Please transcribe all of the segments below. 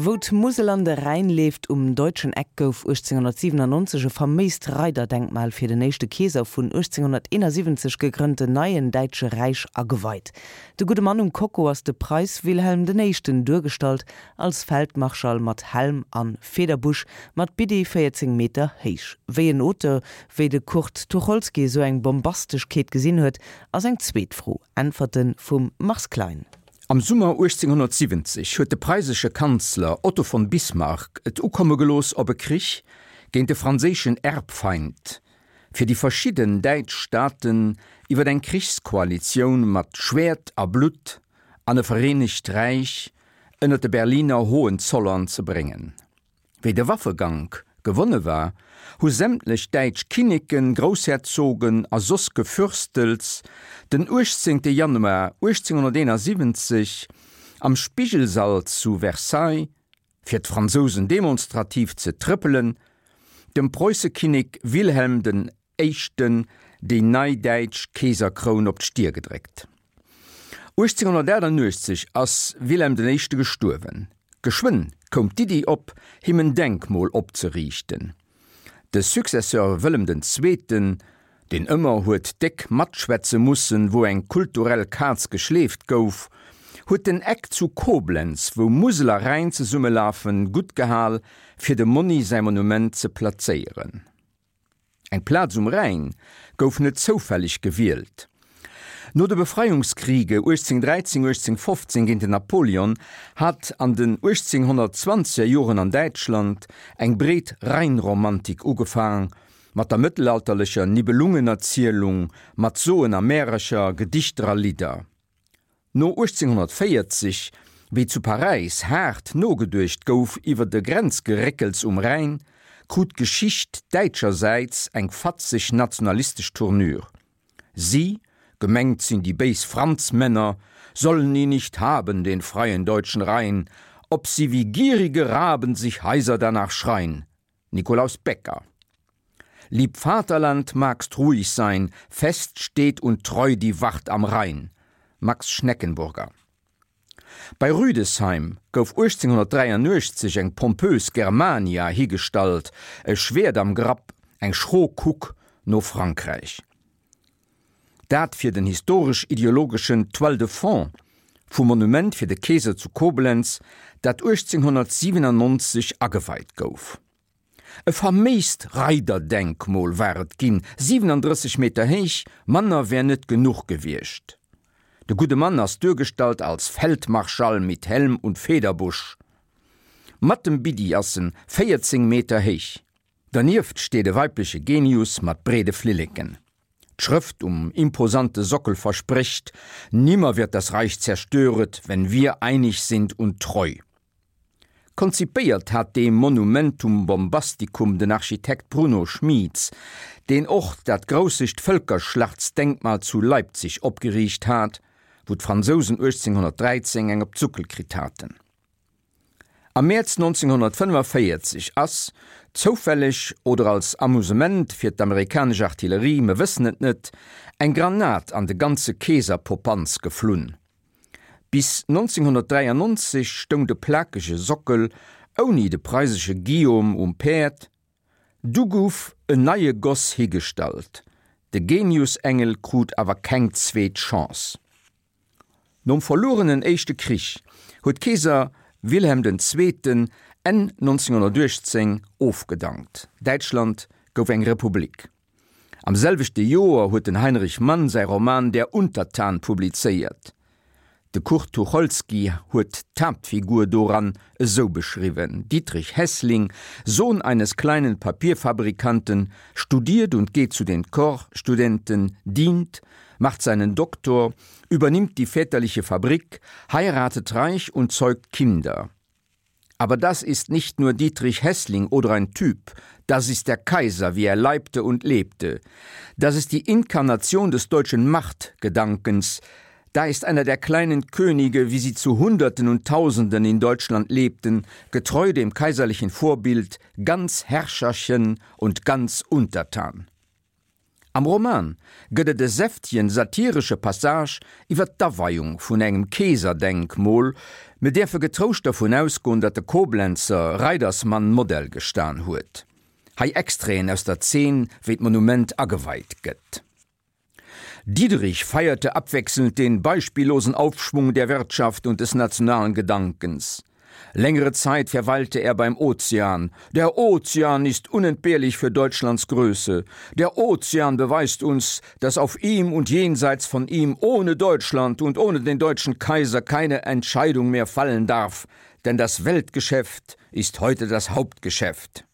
Wou d'Musel an de Rhäin leeft, um Deutschen Eck, gouf 1897 e faméist Reiderdenkmal fir den éischte Keeser vun 1871 gegrënnten neien Däitsche Räich ageweit. De gudde Mann um Kocko ass de Preiss Wilhelm den Éischten, duergestallt als Feldmarschall mat Helm an Federbusch, mat Biddi 14 Meter héich. Wéi en Auteur wéi de Kurt Tucholsky esou eng Bombasteschkeet gesinn huet, ass eng zweet Fro. Äntwerte vum Mars Klein. Am Summer 1870 huet de preisesche Kanzler Otto von Bismarck et ukomme gelooss op e Krich géint de franséischen Erbfeind, fir déi verschidden däitsch Staaten iwwer eng Krichskoalitioun mat Schwäert a Blutt an e vereenegt Räich ënner de Berliner Hohenzollern ze bréngen. Wéi de Waffegank gewonne war, hu sämtlech däitsch Kinneken, Groussherzogen a soss Gefürstels den 18 Januar 1871 am Spigelsall zu Versailles, fir d'Fransousen demonstrativ ze trëppelen, dem Preussekinnek Wilhelm den Éischten déi nei däitsch Keeserkroun op d'Stier gedréckt. 1888 ass Wilhelm den Éischte gestuerwen. Geschwënn koum d'Iddi op, him en Denkmol opzeriichten. De Successeur Wëllem den Zweeten, deen ëmmer huet déck matschwätze mussen, wou eng kulturell Kaz geschleeft gouf, huet den Eck zu Koblenz, wou Musel a Rhäin zesummelafen, guttgehal, fir dem Monni säi Monument ze plazéieren. Eng Plaz um Rhäin gouf net zoufälleg gewielt. No de Befreiungskriege 1813, 1815 géint den Napoleon hat an den 1820er Joren an Däitschland eng breet Rheinromantik ugefaang, mat der mëttelalterlecher Nibelungenerzielung, mat Soen a Märercher, Gedichter a Lidder. No 1840, wéi zu Paräis haart nogeduecht gouf iwwer de Grenzgeréckels um Rhäin, krut d'Geschicht däitschersäits eng fatzeg nationalistesch Tournure. Si, gemengt sinn déi béis Franzmänner, sollen ihn nicht haben, den freien deutschen Rhein, ob sie wie gierige Raben sich heiser danach schrein. Nikolaus Becker. Lieb Vaterland, magst ruhig sein, fest steht und treu die Wacht am Rhein. Max Schneckenburger. Bei Rüdesheim gouf 1883 eng pompös Germania higestallt, e Schwäert am Grapp, eng schro Kuck no Frankräich. Dat fir den historesch-ideologeschen Toile de fond vum Monument fir de Keeser zu Koblenz, dat 1897 ageweit gouf. E faméist Reiderdenkmol war et ginn, 37 Meter héich, manner wär net genuch gewiescht. De gudde Mann ass duergestallt als Feldmarschall mit Helm und Federbusch. Mat dem Biddi ass en 14 Meter héich. Dernieft steet e weibleche Genius mat breede Flilleken. D'Schrëft um imposante Sockel versprécht, Nimmer wird das Reich zerstöret, wenn wir einig sind und treu. Konzipéiert hat dee Monumentum bombasticum den Architekt Bruno Schmieds, deen och dat groussegt Vëlkerschlachtsdenkmal zu Leipzig opgeriicht hat, wou d'Fransousen 1813 eng op d'Suckel kritt haten. Am Mäerz 1945 ass, zoufälleg oder als Amusement fir d'amerikanesch Artillerie, mer wëssen et net, eng Granat an de ganze Keeserpopanz geflunn. Bis 1993 stoung de plakege Sockel ouni de preisesche Guillaume um Päerd, du gouf en neie Goss higestallt, de Geniusengel krut awer keng zweet Chance. Nom verluerenen Éischte Krich huet Keeser Wilhelm den Zweeten Enn 1918 ofgedankt, Däitschland gouf eng Republik. Am selwechte Joer huet den Heinrich Mann säi Roman Der Untertan publizéiert. De Kurt Tucholsky huet d'Haaptfigur doran esou beschriwwen, Dietrich Heßling, Sohn eines kleinen Papierfabrikanten, studiert und geht zu den Corpsstudenten, dient, macht seinen Doktor, übernimmt die väterliche Fabrik, heiratet reich und zeugt Kinder. Aber das ist nicht nur Dietrich Heßling oder ein Typ, das ist der Kaiser, wie er leibte und lebte. Das ist die Inkarnation des deutschen Machtgedankens. Da ist einer der kleinen Könige, wie sie zu Hunderten und Tausenden in Deutschland lebten, getreu dem kaiserlichen Vorbild, ganz Herrscherchen und ganz untertan. Am Roman gëtt et e säftegen satiresche Passage iwwer d'Aweiung vun engem Keeserdenkmol. Mir däerfe getrouscht dervun ausgoen, datt de Koblenzer Reidersmann Modell gestan huet. Hei Extraiten aus der Zeen, wéi d'Monument ageweit gëtt. Diederich feierte abwechselnd den beispiellosen Aufschwung der Wirtschaft und des nationalen Gedankens. Längere Zeit verweilte er beim Ozean. Der Ozean ist unentbehrlich für Deutschlands Größe. Der Ozean beweist uns, dass auf ihm und jenseits von ihm ohne Deutschland und ohne den deutschen Kaiser keine Entscheidung mehr fallen darf, denn das Weltgeschäft ist heute das Hauptgeschäft.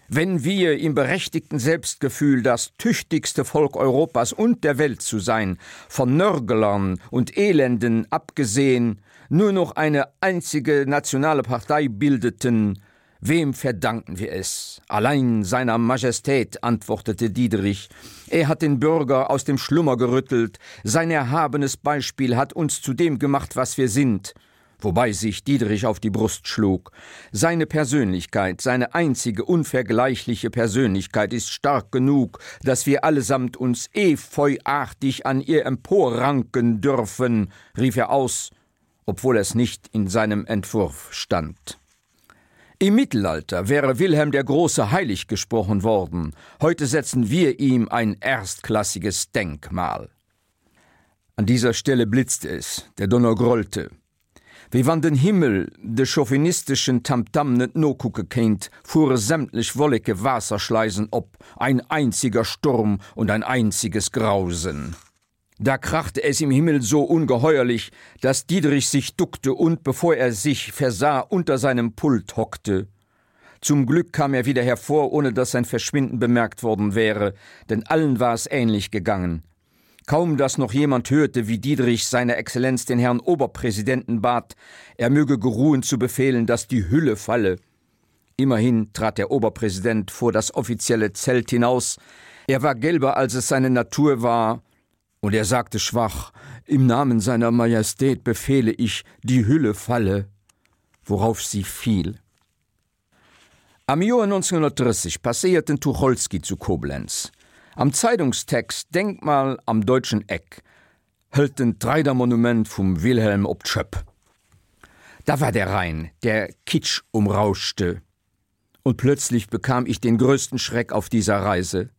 Wenn wir im berechtigten Selbstgefühl das tüchtigste Volk Europas und der Welt zu sein, von Nörgelern und Elenden abgesehen, nur noch eine einzige nationale Partei bildeten, wem verdanken wir es? Allein seiner Majestät, antwortete Diederich. Er hat den Bürger aus dem Schlummer gerüttelt, sein erhabenes Beispiel hat uns zu dem gemacht, was wir sind wobei sich Diederich auf die Brust schlug. Seine Persönlichkeit, seine einzige unvergleichliche Persönlichkeit ist stark genug, dass wir allesamt uns efeuartig an ihr emporranken dürfen, rief er aus, obwohl es nicht in seinem Entwurf stand. Im Mittelalter wäre Wilhelm der Große heilig gesprochen worden, heute setzen wir ihm ein erstklassiges Denkmal. An dieser Stelle blitzte es, der Donner grollte. Wéi wann den Himmel de chauvinisteschen Tamtam net nokucke kéint, fuere sämtlech Wolleke Waasserschleisen op, ein einziger Sturm und ein einziges Grausen. Da krachte es im Himmel so ungeheuerlich, dass Diederich sich duckte und, bevor er sich versah, unter seinem Pult hockte. Zum Glück kam er wieder hervor, ohne dass sein Verschwinden bemerkt worden wäre, denn allen war es ähnlich gegangen. Kaum dass noch jemand hörte, wie Diederich seine Exzellenz den Herrn Oberpräsidenten bat, er möge geruhen zu befehlen, dass die Hülle falle. Immerhin trat der Oberpräsident vor das offizielle Zelt hinaus. Er war gelber, als es seine Natur war, und er sagte schwach: Im Namen seiner Majestät befehle ich, die Hülle falle, worauf sie fiel. Am Joer 1930 passéiert den Tucholsky zu Koblenz. Am Zeitungstext Denkmal am deutschen Eck hëlt en d'Reidermonument vum Wilhelm op d'Schëpp. Da war der Rhein, der Kitsch umrauschte, und plötzlich bekam ich den größten Schreck auf dieser Reise.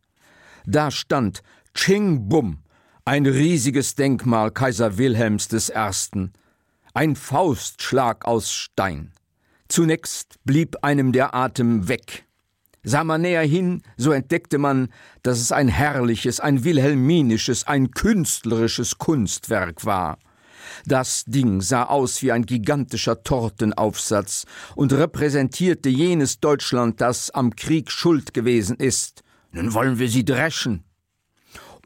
Da stand, tsching bumm, ein riesiges Denkmal Kaiser Wilhelms des Ersten, ein Faustschlag aus Stein. Zunächst blieb einem der Atem weg. Sah man näher hin, so entdeckte man, dass es ein herrliches, ein wilhelminisches, ein künstlerisches Kunstwerk war. Das Ding sah aus wie ein gigantischer Tortenaufsatz und repräsentierte jenes Deutschland, das am Krieg schuld gewesen ist. Nun wollen wir sie dreschen.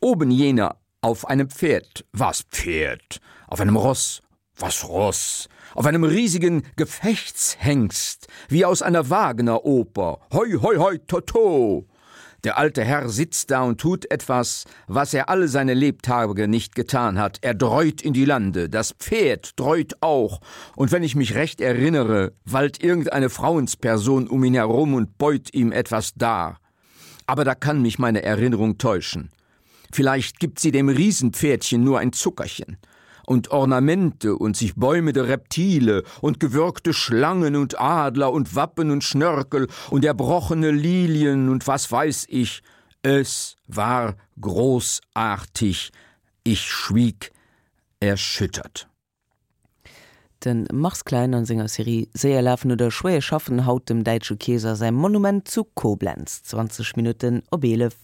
Oben jener auf einem Pferd, was Pferd, auf einem Ross, was Ross, auf einem riesigen Gefechtshengst, wie aus einer Wagneroper, hoi hoi hoi toto! Der alte Herr sitzt da und tut etwas, was er alle seine Lebtage nicht getan hat. Er dreut in die Lande, das Pferd dreut auch, und wenn ich mich recht erinnere, wallt irgendeine Frauensperson um ihn herum und beut ihm etwas dar. Aber da kann mich meine Erinnerung täuschen. Vielleicht gibt sie dem Riesenpferdchen nur ein Zuckerchen und Ornamente und sich bäumende Reptile und gewürgte Schlangen und Adler und Wappen und Schnörkel und erbrochene Lilien und was weiß ich. Es war großartig. Ich schwieg erschüttert. De Mars Klein an senger Serie Séier lafen oder schwéier schaffen, haut dem däitsche Keeser säi Monument zu Koblenz. 20 Minutten op 11.